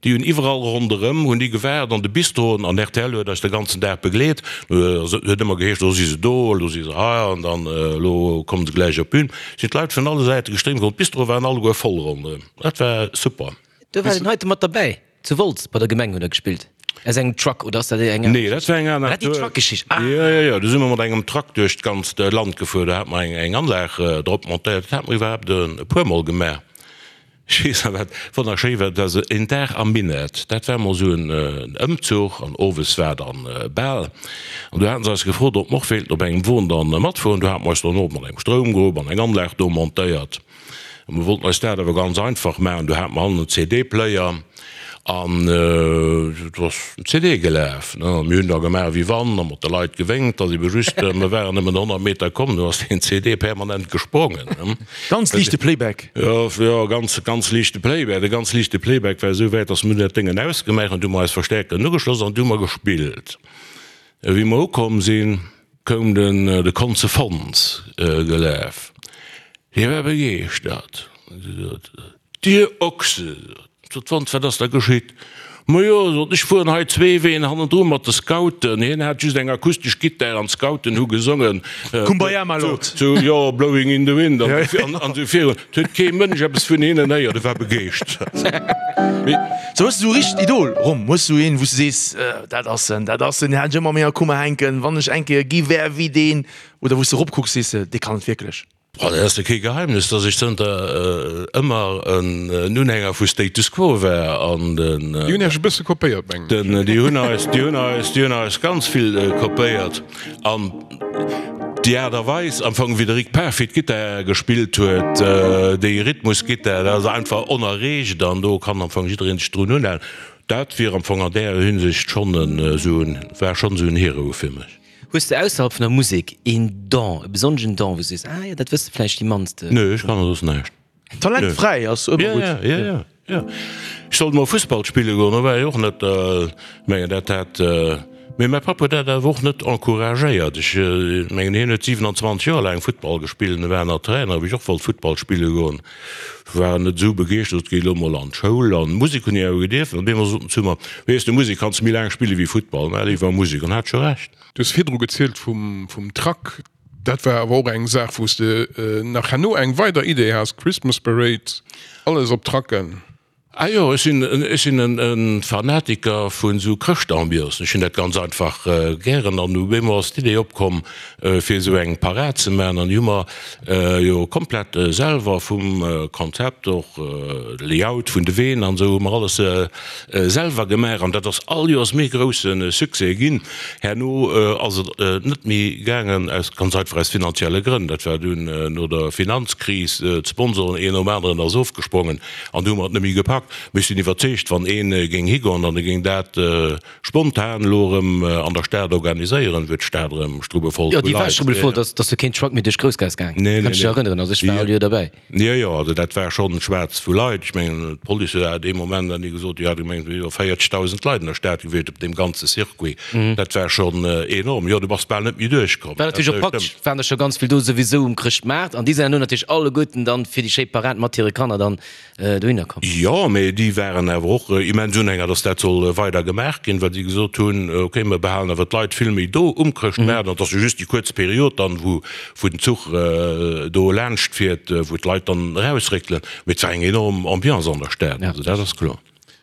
Déi hunn iwwerall ronderëm hunn déi gewaart, an de Bistroen, an rtl huet eis de ganzen Dag begleet. Et huet ëmmer geheescht, elo si se do, elo si se hei, an dann elo kommen se gläich op d'Bün. Sinn d'Leit vun alle Säite gestréimt komm, d'Bistroe waren alleguer voll ronderëm. Dat war super. Do war den heite mat derbäi. Zu Wolz bei der Gemeng huet der gespillt. Aus engem Truck, oder ass dat eng aner Nee, dat war eng aner. War dat déi Truck-Geschicht? Ah! Jo, jo, jo, do si mer mat engem Truck duerch d'ganzt Land gefuer. Do hate mer eng, eng Anlag drop montéiert. Dat hate mer iwwerhaapt e puermol gemaach. Ech weess nach, wat wonnerschéi war, dat ass een Dag am Minett. Dat war emol esou en Ëmzuch an owes war dann Bal. An do haten se eis gefrot, ob mer och wéilten op engem Won dann matfueren. Do hate mer eis dann och mat engem Stroumgrupp an eng Anlag do montéiert. A mir wollten eis dat awer ganz einfach maachen, do hate mer hannen en CD-Player an et ass en CD gelaf. A mir hunn da gemaach wéi wann a mat de Leit gewénkt, ass ebe just, mir waren nëmmen 100 Meter komm, du ass deen CD permanent gesprongen. Ganz liichte Playback. Jo, jo, ganz, ganz liichte Playback. De ganz liichte Playback war esou wäit, datt mir hunn dat Déngen ausgemaach an du hu mer eis Verstärkeren ugeschloss an du hu mer gespillt. Wéi mer ukomm sinn, koum den de Konze Fons gelaf. Hie war begeeschtert. Hie sot, Dir Ochse! Sot d'Fons, wat ass da geschitt? Majo, sot ech, fueren hei zwee Ween hannendru mat de Scouten. Hien hat just eng akustesch Gittar an d'Scouten hu gesongen, Kumbaya, my lord. Zu, jo, Blowing in the wind an esou virun. Et huet kee Mënsch eppes vun hinnen héiert, e war begeeschtert. Sou, hues du esou e richtegt Idol, Rom? Hues du een, wou s du sees, dat ass en, dat ass en, deen hat ech ëmmer an menger Kummer hänken, wann ech eng Kéier gi wär wéi deen? Oder wou s du eropkucks, sees de, dee kann et wierklech? Bon, dat ass jo kee Geheimnis, dass ech zënter ëmmer en Unhänger vu Status Quo war an den. Déi hunn Iech e bësse kopéiert, mengen ech. Déi hunn eis, déi hunn eis, déi hunn eis ganz vill kopéiert. An déi Aart a Weis am Fong, wéi de Rick Parfitt Gittar gespillt huet, déi Rhythmusgittar, dat ass einfach onerreegt an do kann am Fong jidderee sech drun unhalen. Dat wier am Fong an där Hinsicht schonn esou en, war schonn esou en Hero fir mech. Hues de ausserhalb vun der Musek een Don, e besonneschen Don, wou s du sees, ah jo, dat wësse vläicht déi mannst? Nö, ech kann soss näischt. Talentfräi ass ëmmer gutt. Jo, jo, jo, jo. Ech sollt mol Fussball spille goen, do war ech och net, mengen dat hat, mee mäi Papp huet dat awer och net encouragéiert. Ech mengen hien huet 27 Joer laang Futtball gespillt an e war nach Trainer, wéi ech och wollt Futtball spille goen. War net esou begeeschtert, sot, géi elo mol an d'Schoul an Musek hunn ech awer gedierfen. An deemools sot en zu mer, Weess de, Musek kanns de méi laang spille wéi Futtball, mä léiwer Musek. An hat scho Recht. Du hues virdru gezielt vum vum Truck, dat war awer och eng Saach wou s de nach herno eng weider Idee has, Christmas Parade, alles op Trucken. Ah jo, ech sinn ech sinn en Fanatiker vun esou Chrëschtambiancen. Ech hunn dat ganz einfach gären an op eemol ass d'Idee opkomm fir esou eng Parad ze maachen an déi hu mer jo komplett selwer vum Konzept och de Layout vun de Ween an esou hu mer alles selwer gemaach an dat ass all Joers méi grousse Succès ginn. Herno ass et net méi gaangen aus ganz einfach aus finanzielle Grënn. Dat war dunn no der Finanzkris, d'Sponsoren een nom aneren ass ofgesprongen. An du hu mer et net méi gepackt. Mee ech sinn iwwerzeegt, wann ee géing higoen an e géing dat spontan elo erëm an der Stad organiséieren, wier d'Stad erëm strubbevoll Jo, vu déi war Leit. strubbevoll, dass dass du keen Truck méi duerch d'Groussgaass gaang. Nee, nee, Kanns dech nee. erënneren, also ech war all Joer derbäi. Jo, jo, also dat war schonn schwaarz vu Leit. Ech mengen, d'Police huet awer dee Moment dann gesot, déi hat gemengt, et wier iwwer 40.000 Leit an der Stad gewiescht op deem ganze Circuit. Dat war schonn enorm. Jo, du bass bal net méi duerchkomm. War natierlech och praktesch, waren der scho ganz vill do souwisou um Chrëschtmaart an déi sinn herno natierlech alleguerten dann fir déi schéi Parad mat hire Kanner dann dohinner komm. Jo, mee déi waren awer och immens Unhänger, dass dat soll weider gemaach ginn, well si gesot hunn, okay, mir behalen awer d'Leit vill méi do um Chrëschtmaart an et ass jo just déi kuerz Period dann, wou wou den Zuch do laanscht fiert, wou d'Leit dann erausréckelen. Mee et war eng enorm Ambiance an der Stad, also dat ass kloer.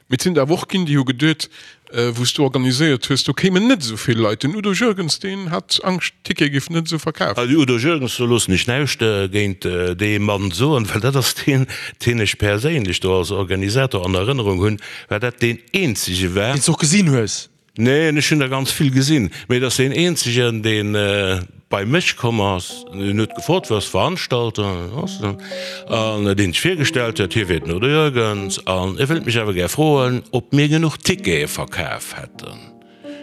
Mee et sinn der awer och ginn, déi hu geduet, wou s du organiséiert hues, do kéimen net esou vill Leit. Den Udo Jürgens, deen hat Angscht, d'Tickete géifen net esou verkaf. De Udo Jürgens, do loossen ech näischt géint dee Mann soen, well dat ass deen, deen ech perséinlech do als Organisator an Erënnerung hunn, well dat deen eenzege war. Deen s de och gesinn hues. Neen, ech hunn der ganz vill gesinn, mee et ass deen eenzegen, dee bei mech komm ass, deen huet gefrot, wou ass d'Veranstaltung, an deen sech virgestallt huet, hie wier den Udo Jürgens an e wëllt mech awer gär froen, ob mir genuch Tickete verkaf hätte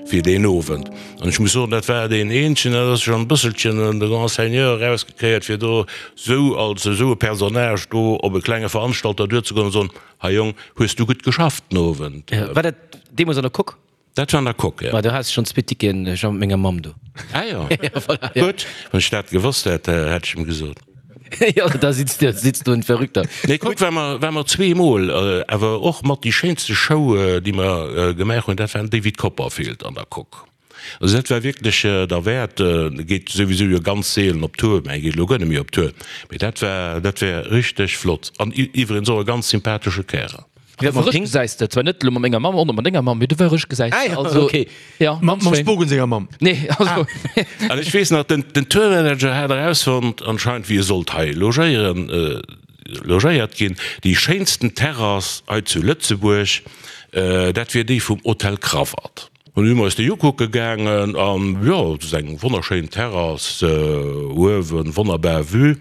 fir deen Owend. An ech muss soen, dat war deen eenzegen, dat ass schonn e bësselchen de Grand Seigneur erausgekéiert, fir do esou als esou e Personnage do op e klenge Veranstalter duerzegoen an soen, Hei Jong, hues du gutt geschafft den Owend? War dat deemools an der Coque? Dat war an der Coque, jo. Ma do hat ech schonn zwee Ticketen, ech war mat menger Mamm do. Ah jo, gutt. Wann ech dat gewosst hätt, hätt ech em gesot. Jo, da sitzt du, sitzt du en Verrückter. Nee, Coque war mer, war mer zweemol, awer och mat déi schéinste Show, déi mer gemaach hunn, dat war den David Copperfield an der Coque. Also dat war wierklech derwäert. E geet souwisou jo ganz seelen op Tour, mä e geet elo guer net méi op Tour. Mee dat war, dat war richteg flott. An iwwregens och e ganz sympathesche Kärel. Du war erich gesäis de, zwar net elo mat menger Mamm, och net mat denger Mamm, mee du war erich gesäis de. Also, okay. Ja, Mam Spogen senger Mamm. Nee, also. An ech weess nach, den, den Tourmanager hat erausfonnt anscheinend, wéi e sollt hei logéieren, logéiert ginn, déi schéinsten Terrass hei zu Lëtzebuerg, dat wier déi vum Hotel Crawatt. An du si mer eis déi ukucke gaangen an jo, et ass eng wonnerschéin Terrass uewen, wonnerbar Vue.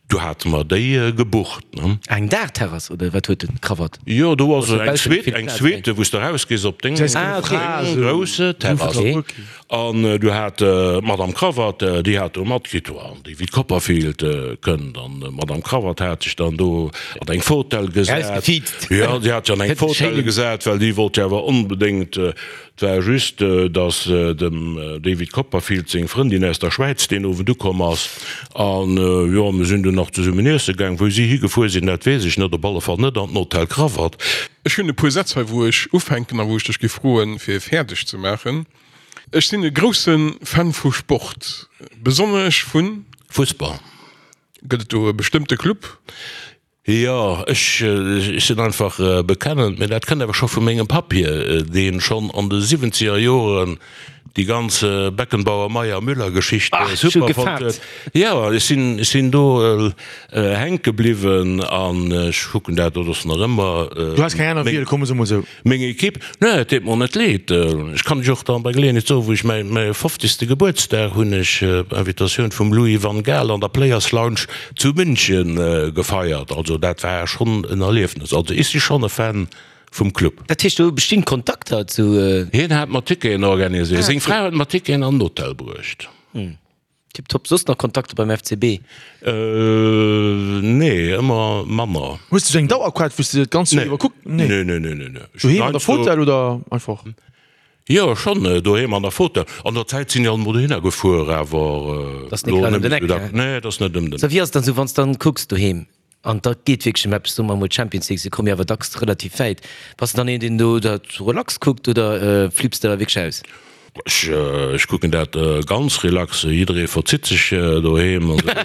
Du hate mer déi gebucht, ne. Eng Daachterrass oder wat huet den Crawatt? Jo, do ass eng Suite, eng Suite, wou s de erausgees op deng grousse Terrass. An du hat d'Madame Crawatt, déi hat do matkritt, jo, an David Copperfield kënnt. An d'Madame Crawatt hat sech dann do an eng Fotell gesat. Jo, déi hat sech an eng Fotell gesat, well déi wollt jo awer onbedéngt. Et war just, datt dem David Copperfield seng Frëndin aus der Schwäiz deen Owend ukomm ass. An jo, mir sinn dunn nach zesummen iesse gaang. Wou si higefuer sinn, dat weess ech net. Op alle Fall net an den Hotel Krawatt. Ech hunn e puer Sätz hei, wou ech ufänken a wou ech dech géif froen, fir fäerdeg ze maachen. Ech sinn e grousse Fan vu Sport, besonnesch vun. Fussball. Gëtt et do e bestëmmte Club? Jo, ech sinn einfach bekennend, mee dat kënnt awer scho vu mengem Papp hier, deen schonn an de siwwenzeger Joren déi ganz Beckenbauer, Meyer, Müller Geschicht super fonnt huet. Jo, ech sinn, ech sinn do hänke bliwwen an ech kucken dat, dat ass nach ëmmer. Du has keng aner Wiel, komm, soe mol esou. Meng Equipe? Nee, et deet mer net leed. Ech kann lech och dann bei Geleeënheet soen, wou ech mäi mäi fofzegste Gebuertsdag hunn ech op Invitatioun vum Louis van Gaal an der Players Lounge zu München gefeiert. Also dat war schonn en Erliefnes. Also ech si schonn e Fan vum Club. Dat heescht do bestinn Kontakter zu. Hien hat mer Ticketen organiséiert, seng Fra huet mer Ticketen an den Hotel bruecht. Tiptop. Soss nach Kontakter beim FCB? Nee, ëmmer manner. Hues de sou eng Dauerkaart wou s de dat ganzt Joer iwwer kucks? Nee. Nee, nee, nee, nee. Doheem an der Fotell oder einfach? Jo, schonn doheem an der Fotell. An der Zäit sinn ech alt mol dohinner gefuer, awer Dat ass net grad ëm den Eck, ne? Nee, dat ass net ëm den Eck. Sou, wéi ass et dann sou, wann s dann kucks doheem An da geet wierklech ëm eppes, soe mer emol d'Champions League, se komme jo awer dacks relativ wäit. Bass de dann een, deen do dat relax kuckt oder flipps de da wierklech aus? Ech kucken dat ganz relax. Jidderee verzitt sech doheem an da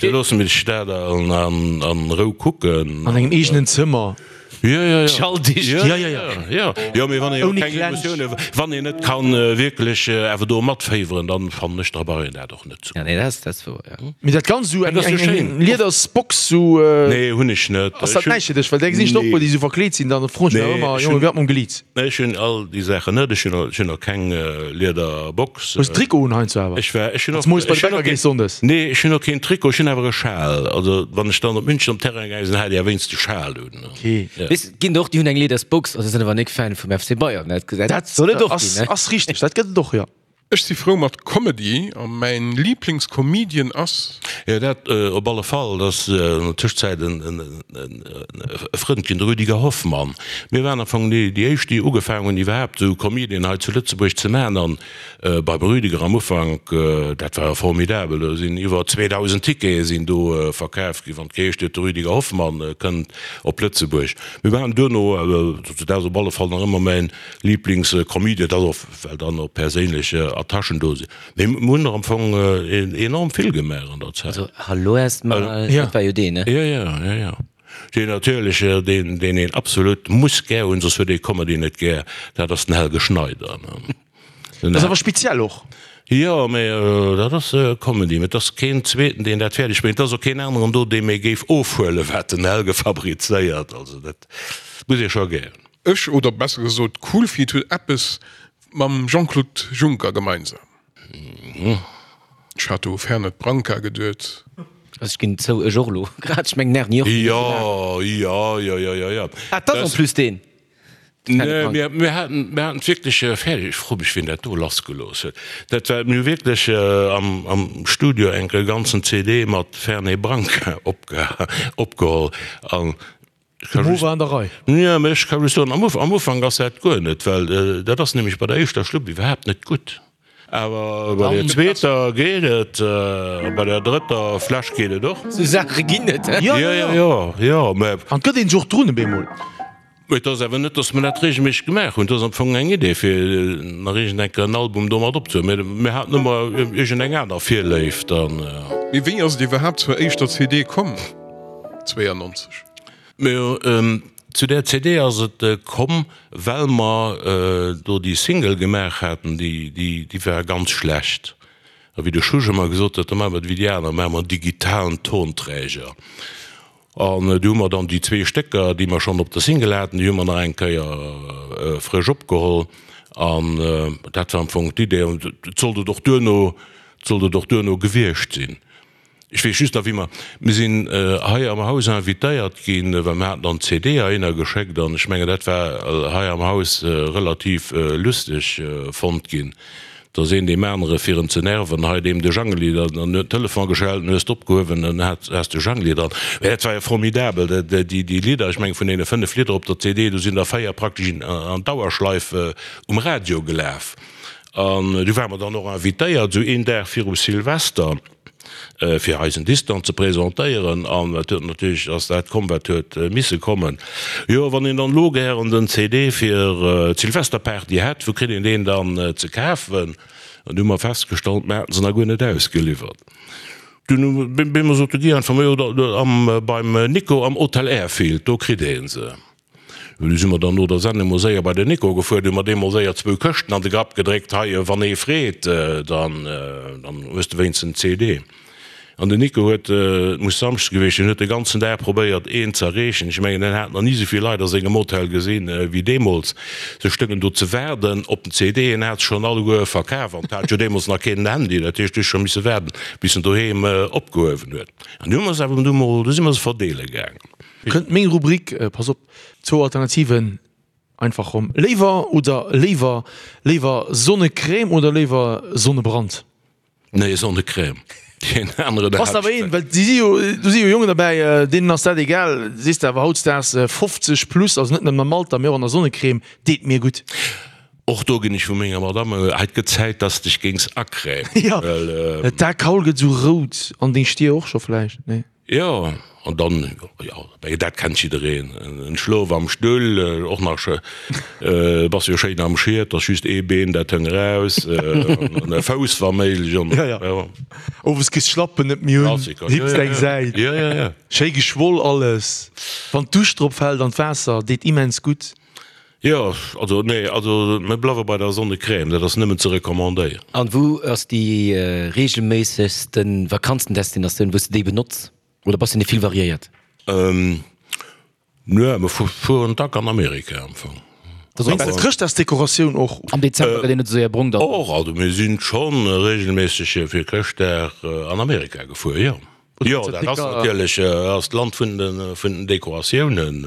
loosse mir dat an Rou kucken. An engem eegenen Zëmmer. Jo, jo, jo. Schalldicht. Jo, jo, jo. Jo, mee wann ee jo keng Emotioune, wann een net kann wierklech awer do matféiweren, dann fannen ech, da brauch een dat och net ze kucken. Ja, nee, dat ass, dat ass wouer, jo. Mee dat Ganzt esou eng, eng, eng Liedersbox sou. Nee, hunn ech net. Ass dat näischt fir dech? Well där gesinn ech der och puer, déi sou verkleet sinn, dann froen ech mech awer ëmmer, Jongen, wéi ass mam Glied? Nee, ech hunn all déi Saachen net. Ech hunn, ech hunn och keng Liederbox. Hues de Trikot un heiansdo awer? Ech war, ech hunn och, Wanns moies bei de Bäcker gees sonndes? Nee, ech hunn och keen Trikot, ech hunn awer e Schal. Also wann ech dann op München op Terrain gaange sinn, hat ech awer wéinst de Schal un. Okay. Ja. Weess, et ginn der och, déi hunn eng Liedersbox, also sinn awer nik Fan vum FC Bayern, dat, dat soll et och ass, ginn, ne? Ass richteg, dat gëtt et och, jo. Ech si frou mat Comedy a mäin Liiblingscomedian ass. Jo, dat op alle Fall. Dat ass an der Tëschzäit e Frënd ginn, de Rüdiger Hoffmann. Mir waren am Fong déi éischt, déi ugefaangen hunn, iwwerhaapt esou Comedien hei zu Lëtzebuerg ze maachen. An beim Rüdiger am Ufank, dat war formidabel, do sinn iwwer 2.000 Tickete sinn do verkaf ginn, wann et geheescht huet, de Rüdiger Hoffmann kënnt op Lëtzebuerg. Mir waren duerno, dat ass op alle Fall nach ëmmer mäin Liiblingscomedian, dat ass och well dann och perséinlech Attachen do sinn. Mee mir hunn der am Fong enorm vill gemaach an der Zäit. Also Hallo erstmal, dat war jo deen, ne? Jo, jo, jo, jo. Deen natierlech, deen, deen een absolut muss gär hunn, soss huet ee Comedy net gär, dat ass den Helge Schneider, ne? Dat ass awer speziell och. Jo, mee dat ass Comedy. Mee et ass keen zweeten, deen dat fäerdeg bréngt. Et ass och keen aneren do, dee méi géif ofhuelen, wat den Helge fabrizéiert. Also dat muss ee scho gär hunn. Ech, oder besser gesot Coolfeet, huet eppes mam Jean-Claude Juncker gemeinsam. Ech hat do u Fernet Branca geduet. Also ech ginn zou, ech och elo grad. Ech mengen Erni och. Jo, jo, jo, jo, jo, jo. Ah, 't ass en plus deen. Nee, mir, mir haten, mir haten et wierklech fäerdeg. Ech froe mech, wien dat do lassgelooss huet. Dat war, mir hu wierklech am, am Studio eng e ganzen CD mat Fernet Branca opge, opgeholl an De Mo war an der Rei. Jo, mä ech ka just soen, am Ufank ass dat guer net, well dat ass nämlech bei der éischter Schlupp iwwerhaapt net gutt. Awer bei der zweeter geet et, a bei der drëtter Fläsch geet et och. Sou Saache ginn et, he? Jo, jo, jo, jo, mä. An et gëtt een sech och drun op eemol. Mä et ass awer net, datt mer dat reegelméisseg gemaach hunn. Et ass am Fong eng Idee, fir nach iergend eng Kéier en Album domat opzehuelen. Mä mir haten ëmmer iergend eng aner Virléift an. Mee wéi ass et iwwerhaapt zur éischter CD komm? 92. Majo, zu där CD ass et komm, well mer do déi Single gemaach haten, déi war ganz schlecht. A wéi de Schusch ëmmer gesot huet, da maache mer et wéi déi aner, maache mer en digitalen Tonträger. An du hu mer dann déi zwee Stécker, déi mer schonn op der Single haten, déi hu mer nach eng Kéier frësch opgeholl. An dat war am Fong d'Idee. An et sollt et och duerno, et sollt et och duerno gewiescht sinn. Ech weess just nach, wéi mer, mir sinn hei am Haus invitéiert ginn, well mir haten dann d'CD heihinner geschéckt an ech mengen, dat war hei am Haus relativ lusteg fonnt ginn. Dass een deem anere fir en ze nerven, hei deem de Jangeli, dann huet den Telefon geschellt, dann hues de opgehuewen, dann has de Jangeli dran. Mä dat war jo formidabel, déi Lidder, ech mengen vun deene 5 Lidder op der CD, do sinn der 4 praktesch an Dauerschleif um Radio gelaf. An du ware mer dann och invitéiert, esou een Dag viru Silvester, fir eisen Disk dann ze presentéieren. An et huet natierlech, ass dat komm, wat huet misse kommen. Jo, wann een dann elo gären den CD fir d'Silvesterparty hätt, wou kritt een deen dann ze kafen? An du hu mer festgestallt, mer haten se nach guer net ausgeliwwert. Dunn hu mer sot de Guy einfach, majo, da beim Nico am Hotel Airfield, do kritt ee se. Du si mer dann no der Sendung mol séier bei den Nico gefuer, du hu mer deem mol séier zwou Këschten an de Grapp gedréckt, hei, wann ee freet, dann hues de wéinstens en CD. An den Nico huet, et muss Samschdes gewiescht sinn, huet de ganzen Dag probéiert een ze erreechen. Ech mengen, en hat nach ni esou vill Leit a sengem Hotel gesinn wéi deemools. Se stoungen do ze waarden op den CD, en hat se schonn alleguer verkaf an et hat jo deemools nach keen en Handy, dat heescht, du hues scho misse waarden, bis en doheem opgehuewen huet. An du hu mer se awer du mol, du si mer se verdeele gaangen. Kënnt meng Rubrik, pass op, zwou Alternativen, einfach rom, léiwer oder léiwer, léiwer Sonnecrème oder léiwer Sonnebrand? Nee, Sonnecrème. Deen aneren, Bass awer een, well si si jo, do si jo Jongen derbäi, deenen ass dat egal, sees de awer hautdesdaags 50 plus, also net nëmmen am Alter, mee och an der Sonnecrème, deet mir gutt. Och do ginn ech vu menger Madame, hei, et gëtt Zäit, dass de dech géings acrèmen, Jo, well. D'Akaul gëtt esou rout an deng Stier och scho vläicht, nee? Jo, an dann, jo, dat kennt jiddereen, en Schlof am Stull, och nach, bass jo schéin am Schiet, ass just ee Been, dat hëng eraus, an e Fouss wa méiglech, an jo, jo. Owes kriss d'Schlappen net méi un, hipps eng Säit, jo, jo, jo. Schéi geschwoll alles, wann d'Dusch drop fält an d'Waasser deet immens gutt. Jo, also nee, also mir bleiwe bei der Sonnecrème, dat ass nëmmen ze recommandéieren. An wou ass déi regelméissegsten Vakanzendestinatioun wou s de déi benotz? Oder bass de net vill variéiert? Nö, mir fueren dack an Amerika am Fong. Wéinst der Chrëschtdagsdekoratioun och? Am Dezember gëtt een net esou séier brong dann. Och, also mir sinn schonn regelméisseg fir Chrëschtdag an Amerika gefuer, jo. Jo, dat ass natierlech ass d'Land vun den Dekoratiounen.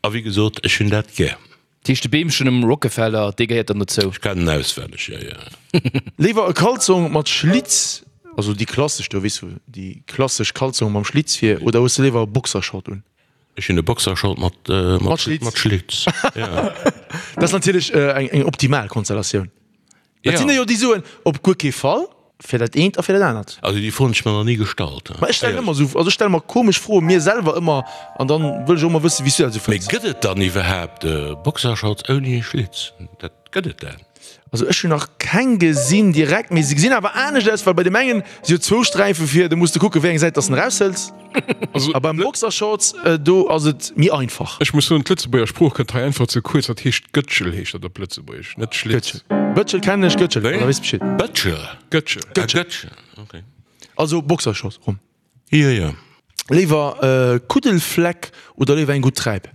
A wéi gesot, ech hunn dat gär. Dat heescht de Beemchen um Rockefeller, dee gehéiert dann dozou? Ech kennen en auswenneg, jo, jo. Léiwer e Kalzong mat Schlitz, also déi klassesch do, weess du, déi klassesch Kalzong mam Schlitz vir, oder hues de léiwer e Boxershort un? Ech hunn e Boxershort mat, mat Schlitz, jo. Dat ass natierlech eng optimal Konstellatioun. Et sinn der jo déi soen, op guer kee Fall, fir dat eent a fir dat anert. Also déi Fro hunn ech mer nach ni gestallt. Ma ech stellen ëmmer esou, also ech stelle mer komesch Froen, mir selwer ëmmer, an dann wëll ech och ëmmer wëssen, wéi s du dat esou fënns. Mee gëtt et dann iwwerhaapt Boxershorts ouni Schlitz? Dat, gëtt et dat? Also ech hunn nach keng gesinn direkt, mee se gesinn awer anescht aus, well bei deem engen si jo zwou Sträife vir, do muss de kucken, wéi eng Säit dass de en eraushëls. Also, A beim Boxershorts, do ass et méi einfach. Ech muss soen, d'Lëtzebuerger Sprooch kënnt hei einfach ze kuerz. Dat heescht Gëtschel heescht dat op Lëtzebuergesch, net Schlitz. Gëtschel. Bëtschel kennen ech, Gëtschel, Wéi? da weess Bescheed. Bëtschel? Gëtschel. Ah, Gëtschel, okay. Also Boxershorts rum. Jo, jo. Léiwer Kuddelfleck oder léiwer eng gutt Träip?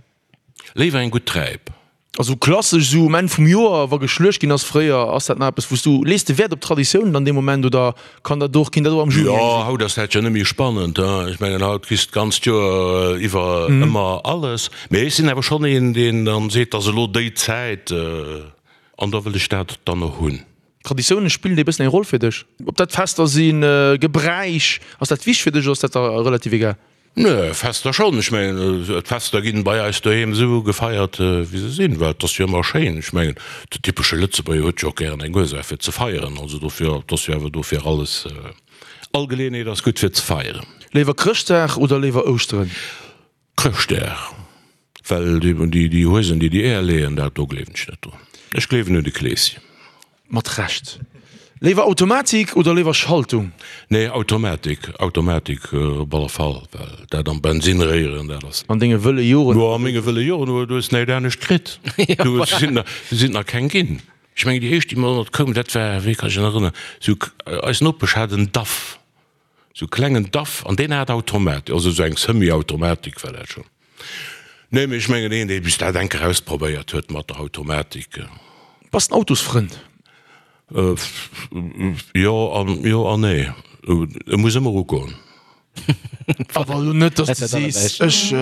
Léiwer eng gutt Träip. Also klassesch esou um Enn vum Joer, wa geschluecht ginn ass fréier, ass dat nach eppes wou s du, lees de Wäert op Traditiounen dann dee Moment oder kann dat och, ginn dat och am Juni Jo, eng sinn? haut ass dat jo net méi spannend, hein. Ech mengen haut kriss d'ganzt Joer iwwer ëmmer alles. Mee ech sinn awer schonn een, deen dann seet, et ass elo déi Zäit an da wëll ech dat dann och hunn. Traditiounen, spillen déi e bëssen eng Roll fir dech? Ob dat Fester sinn, Gebräich, ass dat wichteg fir dech oder ass dat der relativ egal? Nö, Fester schonn. Ech mengen, d'Fester ginn bei eis doheem esou gefeiert, wéi se sinn, well et ass jo ëmmer schéin. Ech mengen, de typesche Lëtzebuerger huet jo och gären eng Ursaach fir ze feieren. Also dofir, et ass jo awer dofir alles, all Geleeënheet ass gutt fir ze feieren. Léiwer Chrëschtdag oder léiwer Ouschteren? Chrëschtdag. Well déi Huesen, déi déi Eeër leeën, dat do gleewen ech net drun. Ech gleewen un de Kleeschen. Mat Recht. Léiwer Automatik oder léiwer Schaltung? Nee, Automatik, Automatik op alle Fall, well dat am Bensin réieren, dat ass. An denge wëlle Joren. Jo, a menge wëlle Joren, du hues näischt anescht kritt. Du sinn der, sinn nach keng ginn. Ech mengen, déi éischt, déi mer koumen, dat war, wéi kann ech mech nach erënneren, sou, eis Nopesch hat en Daf. Sou klengen Daf, an deen hat Automatik, also sou eng Semi-Automatik war dat schon. Nee, mee ech mengen een dee bis dat enker ausprobéiert huet mat der Automatik. Bass en Autosfrënd? Jo an jo an nee. E muss ëmmer ugoen. Awer elo net, dass de sees, ech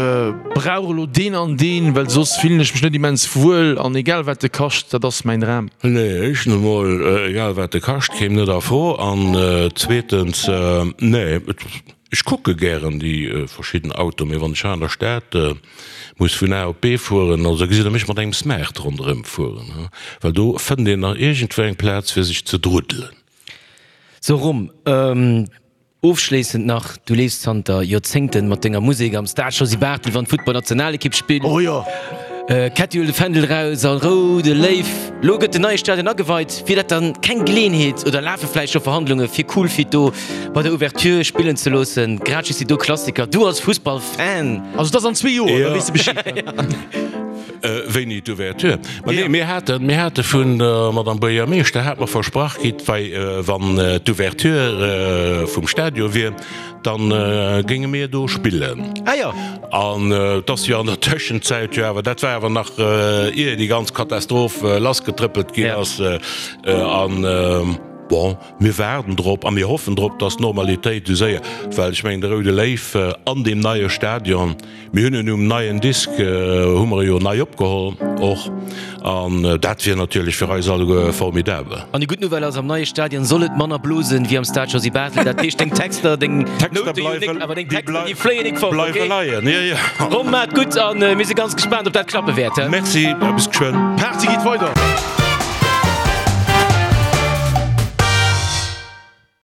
brauch elo deen an deen, well soss fillen ech mech net immens wuel an egal wat e kascht, dat ass mäin Dram. Nee, éischtens emol, egal wat e kascht, kéim net a Fro an zweetens, nee, ech kucke gären déi verschidden Autoen, mee wann ech hei an der Stad muss vun A op B fueren, also gesitt der mech mat engem Smart ronderëm fueren, well do fënnt een nach iergendwou eng Plaz fir sech ze druddelen. Sou Rom, Ofschléissend nach, du leefs zanter Joerzéngten mat denger Musek am Stade Josy Barthel, wann d'Futtballnationalekipp spillt. Oh jo! Ketty huelt de Fändel raus a Roude Léiw. Lo gëtt den neie Stadion ageweit. Wier dat dann keng Geleeënheet oder lafe vläicht scho Verhandlunge fir Cool Feet do bei der Ouverture spillen ze loossen? Grad just déi do Klassiker, du als Fussballfan. Also et ass an zwee Joer, da weess de Bescheed. Wéini d'Ouverture? Ma nee, mir haten, mir hate vun der Madame Buergermeeschter hat mer versprach kritt, wei wann d'Ouverture vum Stadion wier, dann géinge mir do spillen. Ah jo. An et ass jo an der Tëschenzäit jo awer, dat war awer nach ier déi ganz Katastroph lassgetrëppelt ginn ass, an bon, mir waarden drop a mir hoffen drop, dass d'Normalitéit esou séier, well ech mengen de Roude Léiw an deem neie Stadion, Mir hunn en um neien Disk, hu mer e jo nei opgeholl och, an dat wier natierlech fir eis alleguer formidabel. An déi gutt Nouvelle ass, am neie Stadion soll et manner blosen wéi am Stade Josy Barthel. Dat heescht, deng Texter, deng Noute jo nik, awer deng Texter, déi fléien nik fort, okay? Bleiwe leien, jo, jo. Rom, maat gutt, a mir si ganz gespaant, ob dat klappe wäert. Merci, a bis geschwënn. D'Party geet weider!